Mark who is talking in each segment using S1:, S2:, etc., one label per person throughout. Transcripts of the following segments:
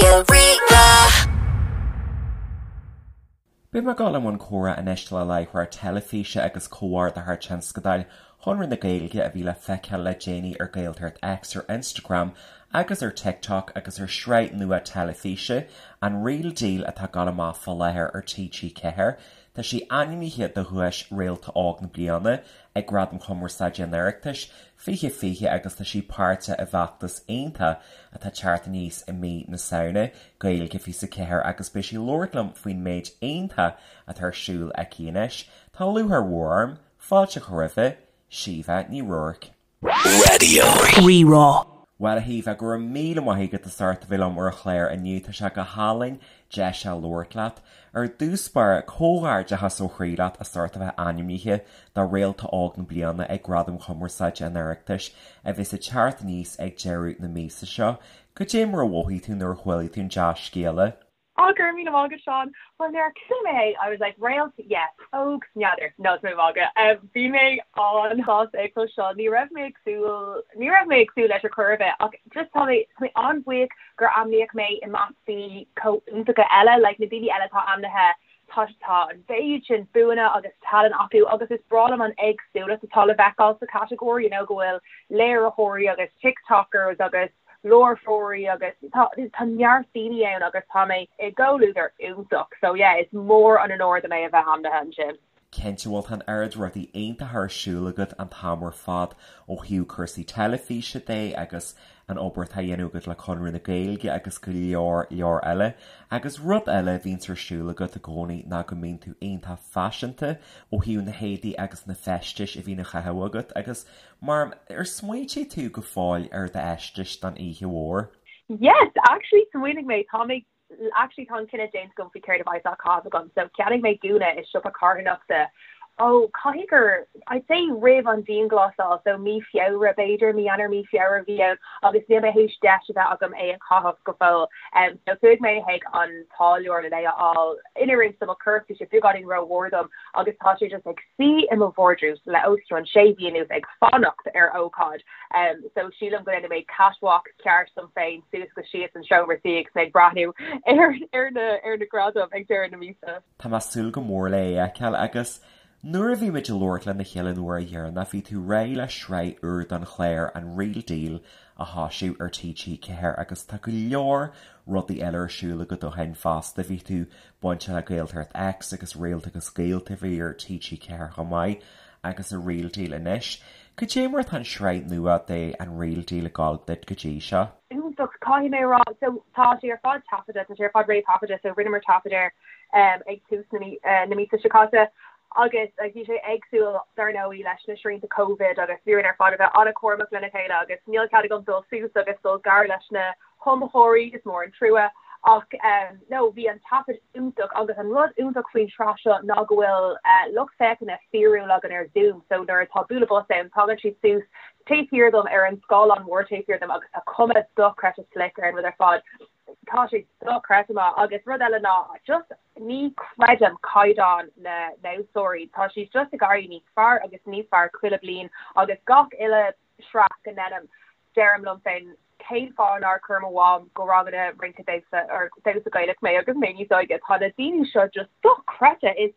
S1: Raidió Rí-Rá.
S2: Beidh mé ag dul i mbun comhrá anois le láithreoir teilifíse agus comhordaitheoir tionscadail Chonradh na Gaeilge a bhí le feiceáil le déanaí ar Gaeltacht X ar Instagram agus ar TikTok agus ar shraith nua teilifíse, An Real Deal atá ag dul amach fá láthair ar TG4. Tá sí ainmnithe do dhuais Réalta Óg na Bliana ag Gradaim Chumarsáide an Oireachtais 2020 agus tá sí páirteach i bhfeachtas iontach atá ag teacht aníos i mí na Samhna, Gaeilge 24 agus beidh sí ag labhairt liom faoin méid iontach atá ar siúl aici anois. Tá lúcháir mhór orm fáilte a chur roimhe, Síomha Ní Ruairc.
S1: Raidió Rí-Rá.
S2: Bhuel, a Shíomha, go raibh míle maith agat as ucht a bheith liom ar an chlár inniu. Tá sé go hálainn deis a labhairt leat. Ar dtús báire, comhghairdeachas ó chroí leat as ucht a bheith ainmnithe do Réalta Óg na Bliana ag Gradaim Chumarsáide an Oireachtais, a bheas ag teacht aníos ag deireadh na míosa seo. Cad é mar a mhothaigh tú nuair a chuala tú an dea-scéala?
S3: Á, go raibh míle maith agat, Seán. Bhuel, nuair a chuala mé é, I was like, réalt, yes, óg, n'fheadar, no, tá mé ag magadh. Bhí mé an-sásta é a chloisteáil. Ní raibh mé ag súil, ní raibh mé ag súil leis ar chor ar bith, ach just tá mé, tá mé an-bhuíoch gur ainmníodh mé i measc daoine chomh iontacha eile, like na daoine eile atá ainmnithe, tá, tá an mhéid sin buanna agus tallann acu agus is breá liom an éagsúlacht atá le feiceáil sa chatagóir, you know, go bhfuil léiritheoirí agus TikTokers agus láithreoirí agus tá tá neart daoine ann agus tá mé i gcomhluadar iontach so yeah is mór an onóir dom é a bheith ainmnithe ansin.
S2: Cinnte, bhuel tá an oiread rudaí iontacha ar siúl agat an t-am ar fad ó thaobh cúrsaí teilifíse de agus an obair atá á dhéanamh agat le Conradh na Gaeilge agus go leor leor eile. Agus rud eile a bhíonns ar siúl agat i gcónaí ná go mbíonn tú iontach faiseanta ó thaobh na héadaí agus na feistis a bhíonn á chaitheamh agat agus Mar, ar smaointigh tú go fóill ar d'fheisteas don oíche mhór?
S3: Yes, actually smaoinigh mé, tá mé, actually tá an cinneadh déanta agam faoi céard a bheidh á chaitheamh agam. So cheannaigh mé gúna i siopa carthanachta, oh, caithfidh gur, I'd say roimh an dianghlasáil, so mí Feabhra b'fhéidir, mí Eanáir, mí Feabhra a bhí ann agus níl mé théis deis a bheith agam é a chaitheamh go fóill. Um, so chuaigh mé chuig an táilliúir le é a fháil in oiriúint do mo chorp, bhí sé beagáinín rómhór dom agus tá sé just ag suí i mo vardrús le os cionn sé mhí anuas ag fanacht ar ócáid. So sílim go ndéanfaidh mé catwalk ceart dom féin suas agus síos an seomra suí agus mé ag breathnú ar ar na ar na gradaim ag deireadh na míosa.
S2: Tá mé ag súil go mór le é a fheiceáil agus nuair a bhí muid ag labhairt lena chéile an uair dheireanach bhí tú réidh le sraith úr don chlár An Real Deal a thoisiú ar TG4 agus tá go leor rudaí eile ar siúl agat ó shin fosta. Bhí tú bainteach le Gaeltacht X agus Réalta agus Gaolta a bhí ar TG4 chomh maith agus an Real Deal anois. Cad é mar atá an sraith nua de An Real Deal ag gabháil duit go dtí seo?
S3: Iontach, caithfidh mé a rá. So tá sé ar fad taifeadta, tá sé ar fad réamhthaifeadta so rinneamar taifead air ag tús na míosa seo caite agus bhí sé éagsúil dar ndóigh leis na srianta Covid agus bhí orainn ar fad a bheith an-chúramach lena chéile agus níl cead agam dul suas agus dul gar leis na hiomaitheoirí, is mór an trua. Ach no, bhí an taifead iontach agus an rud iontach faoin tsraith seo ná go bhfuil lucht féachana fíorúil againn ar Zoom so nuair atá bualadh bos ann tagann siad suas taobh thiar dom ar an scáileán mór taobh thiar dom agus tá cuma dochreidte slick ar an rud ar fad. Tá sé dochreidte maith agus rud eile ná just ní chreidim caighdeán na ndamhsóirí. Tá siad just ag éirí níos fearr agus níos fearr chuile bliain agus gach uile sraith go ndeinim, deirim liom féin, cén fáth nár chuir mo mham go ranganna rince damhsa or damhsa Gaelach mé agus mé níos óige? Tá na daoine seo just dochreidte, is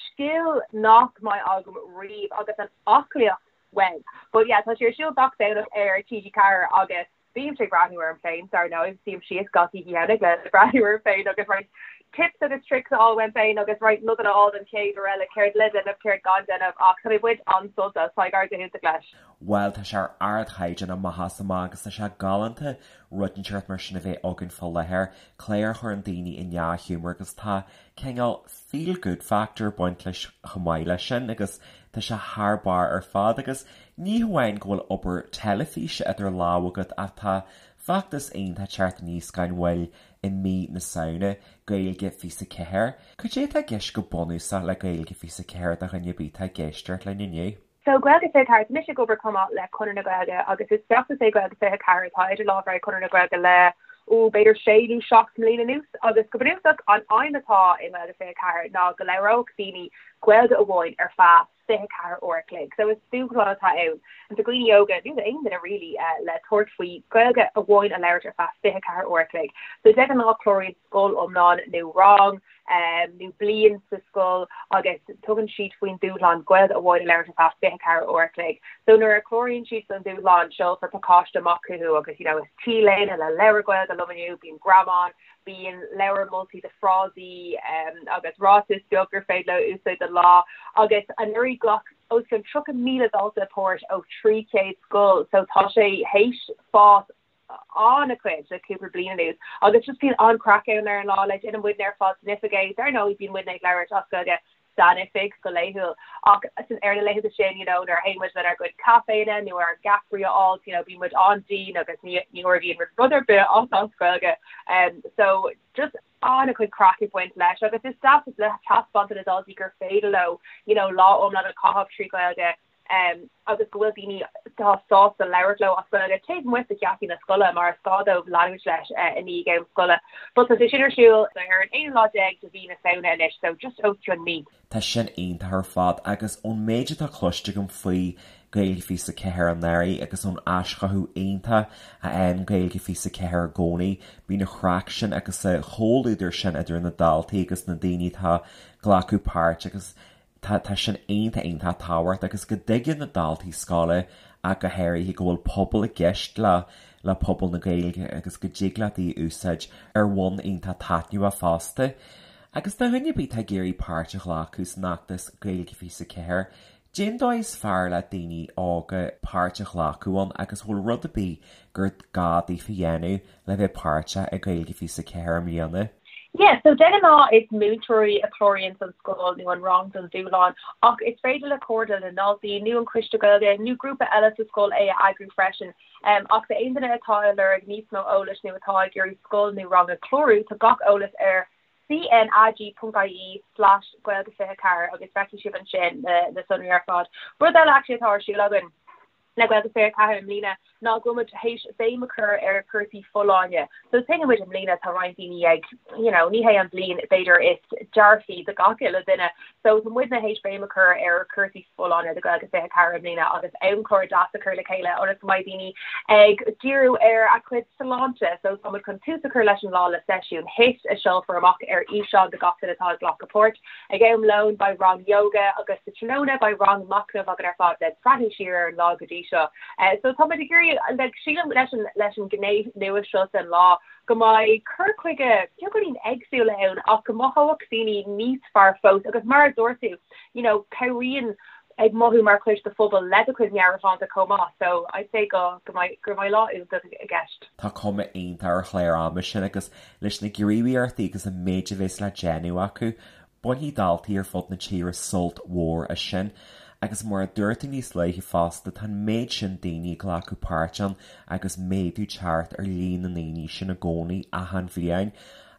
S3: scil nach mbeidh agam riamh agus an aclaíocht wow. But yeah, tá sé ar siúl gach Domhnach ar TG4 agus bímse ag breathnú orm féin, dar ndóigh, suím síos gach oíche Dhomhnaigh le breathnú orm féin agus roinnt tips agus tricks a fháil uaim féin agus roinnt nodanna a fháil don chéad uair eile, céard le déanamh, céard gan déanamh ach tá mé ag baint an-sult as, tá ag éirí go hiontach leis.
S2: Bhuel, tá sé ar ardchaighdeán amach is amach agus tá sé galánta rud inteacht mar sin a bheith againn fá láthair, clár a chuireann daoine i ndea-ghiúmar agus tá cineál feel good factor ag baint leis chomh maith leis sin agus tá sé thar barr ar fad agus ní hamháin go bhfuil obair teilifíse idir lámha agat ach tá feachtas iontach ag teacht aníos gan mhoill i mí na Samhna, Gaeilge 24. Cad é atá i gceist go bunúsach le Gaeilge 24 do dhuine ar bith atá ag éisteacht linn inniu?
S3: So Gaeilge 24, tá mise ag obair chomh maith le Conradh na Gaeilge agus is feachtas é Gaeilge 24 atá idir lámha ag Conradh na Gaeilge le, ó, b'fhéidir sé nó 7 mbliana anuas agus go bunúsach an aidhm atá i nGaeilge 24 ná go labhródh daoine Gaeilge amháin ar feadh. 24 uair a chloig. So is dúshlán atá ann do dhaoine óga, nó d'aon duine really, le tabhairt faoi Gaeilge amháin a labhairt ar feadh 24 uair a chloig. So de ghnáth cláraíonn scoil iomlán nó rang nó bliain sa scoil agus tugann siad faoin dúshlán Gaeilge amháin a labhairt ar feadh 24 uair a chloig. So nuair a chláraíonn siad don dúshlán seolfar pacáiste amach chucu agus you know is T-léine le labhair Gaeilge liom inniu, bíonn greamán, bíonn leabhar moltaí de frásaí agus ráiteas beag gur féidir leo úsáid don lá agus anuraidh ghlac os cionn 30,000 dalta páirt ó 300 scoil so tá sé théis fás an-chuid le cúpla bliain anuas agus just bíonn an-chraic ann ar an lá like déanann muidne ar fad san oifig é dar ndóigh bíonn muidne ag labhairt as Gaeilge san oifig go laethúil ach san ar na laethanta sin you know nuair a théann muid lenár gcuid caiféanna nó ár gceapairí a fháil you know bíonn muid an-dian agus ní ní ordaíonn muid rud ar bith as as Gaeilge um so just an-chuid craic ag baint leis agus is deas le taispeáint do na daltaí gur féidir leo you know lá iomlán a chaitheamh trí Ghaeilge um agus go bhfuil daoine atá sásta labhairt leo as Gaeilge taobh amuigh de gheataí na scoile mar is gá dóibh leanúint leis i ndiaidh am scoile. But tá sé sin ar siúl ar an aonú lá déag de mhí na Samhna anois, so just os cionn mí.
S2: Tá sin iontach ar fad agus ón méid atá cloiste agam faoi Gaeilge 24 anuraidh agus ón aischothú iontach a fhaigheann Gaeilge 24 i gcónaí, bíonn an chraic sin agus an comhluadar sin idir na daltaí agus na daoine atá ag glacadh páirt agus Tá, tá sin iontach, iontach tábhachtach agus go dtuigeann na daltaí scoile ach go háirithe go bhfuil pobal i gceist le, le pobal na Gaeilge agus go dtig leat í a úsáid ar bhonn iontach taitneamhach fosta. Agus do dhuine ar bith atá ag iarraidh páirt a ghlacadh san fheachtas Gaeilge 24, cén dóigh is fearr le daoine óga páirt a ghlacadh ann agus bhfuil rud ar bith gur gá daofa a dhéanamh le bheith páirteach i Gaeilge 24 i mbliana.
S3: Yeah, so de ghnáth is múinteoirí a chláraíonn an scoil nó an rang don dúshlán ach is féidir le Comhairle na nDaltaí nó an Coiste Gaeilge nó grúpa eile sa scoil é a eagrú freisin. Ach d'aon duine atá ag lorg níos mó eolais nó atá ag iarraidh scoil nó rang a chlárú, tá gach eolas ar cnag.ie slash gaeilge24 agus feicfidh sibh ansin na sonraí ar fad. Rud eile actually atá ar siúl againn. le Gaeilge 24 i mbliana ná go bhfuil muid théis béim a chur ar chúrsaí folláine. So tuigeann muid i mbliana tá roinnt daoine ag, you know, ní hé an bhliain b'fhéidir is dearfaí do gach uile duine. So tá muidne théis béim a chur ar chúrsaí folláine do Gaeilge 24 i mbliana agus amchlár deas a chur le chéile ionas go mbeidh daoine ag díriú ar a gcuid sláinte. So tá muid chun tús a chur leis an lá le seisiún HIIT a seolfar amach ar fhíseán do gach duine atá ag glacadh páirt. Ag am lóin beidh rang yoga agus sa tráthnóna beidh rang machnaimh againn ar fad le breathnú siar ar an lá go dtí seo. So tá muid ag iarraidh, like, sílim leis an, leis an ghné nua seo den lá go mbeidh cur chuige beagáinín éagsúil ann ach go mothóidh daoine níos fearr fós agus mar a dúirt tú, you know, cabhraíonn ag mothú mar chuid de phobal le do chuid meabhairshláinte chomh maith. So I'd say go, go mbeidh, go mbeidh lá iontach i gceist.
S2: Tá cuma iontach ar chlár ama sin agus leis na gníomhaíochtaí agus an méid a bheas le déanamh acu, bainfidh daltaí ar fud na tíre sult mhór as sin. Agus mar a dúirt tú níos luaithe fosta, tá an méid sin daoine ag glacadh páirt ann agus méadú ag teacht ar líon na ndaoine sin i gcónaí achan bhliain.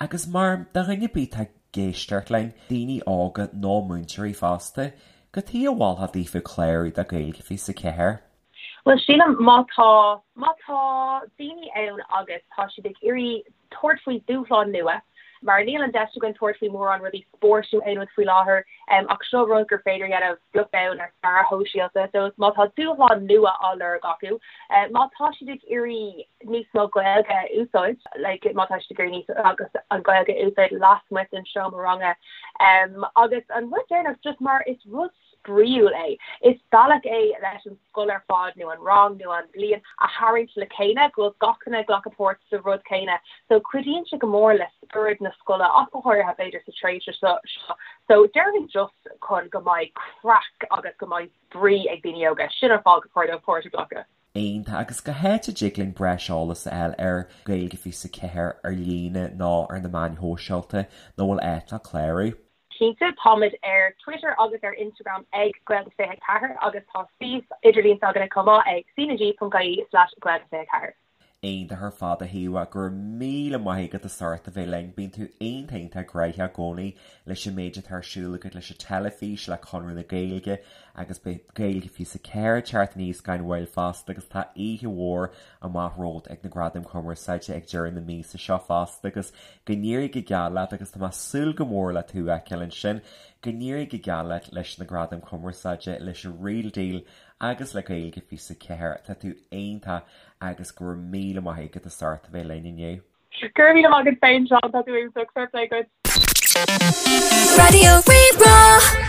S2: Agus mar do dhuine ar bith atá ag éisteacht linn, daoine óga nó múinteoirí fosta, cad chuige a mholfá daofa clárú do Gaeilge 24?
S3: Bhuel, sílim má tá, má tá daoine ann agus tá siad ag iarraidh tabhairt faoi dúshlán nua, mar níl an deis againn tabhairt faoi mórán rudaí spóirt nó aon rud faoi láthair, ach seo rud gur féidir a dhéanamh beag beann ar scaradh shóisialta, so má tá dúshlán nua á lorg acu, má tá siad ag iarraidh níos mó Gaeilge a úsáid, like má tá siad ag iarraidh níos, agus an Ghaeilge a úsáid lasmuigh den seomra ranga, agus an rud deireanach, just mar is rud spraíúil é. Is bealach é leis an scoil ar fad nó an rang nó an bhliain a tharraingt le chéile, go bhfuil gach duine ag glacadh páirt sa rud céanna. So cuidíonn sé go mór le spiorad na scoile ach go háirithe b'fhéidir sa tréimhse seo. So déarfainn just chun go mbeidh craic agus go mbeidh spraoi ag daoine óga, sin an fáth gur chóir dóibh páirt a ghlacadh.
S2: Iontach, agus cá háit a dtig linn breis eolais a fháil ar Gaeilge 24 ar líne nó ar na meáin shóisialta nó bhfuil áit le clárú?
S3: Cinnte, táimid ar Twitter agus ar Instagram ag Gaeilge24 agus tá suíomh idirlín s'againne chomh maith ag cnag.ie/gaeilge24.
S2: Iontach ar fad a Shíomha, go raibh míle maith agat as ucht a bheith linn. Bíonn tú iontach iontach gnoitheach i gcónaí leis an méid atá ar siúl agat leis an teilifís, le Conradh na Gaeilge agus beidh Gaeilge 24 ag teacht aníos gan mhoill fosta agus tá oíche mhór amach romhat ag na Gradaim Chumarsáide ag deireadh na míosa seo fosta agus go n-éirí go geal leat agus tá mé ag súil go mór le tú a fheiceáil ansin. Go n-éirí go geal leat leis na Gradaim Chumarsáide, leis an Real Deal agus le Gaeilge 24. Tá tú iontach agus go raibh míle maith agat as ucht a bheith linn inniu.
S3: Go raibh míle maith agat féin Seán, tá tú iontach, fair play duit. Raidió Rí-Rá.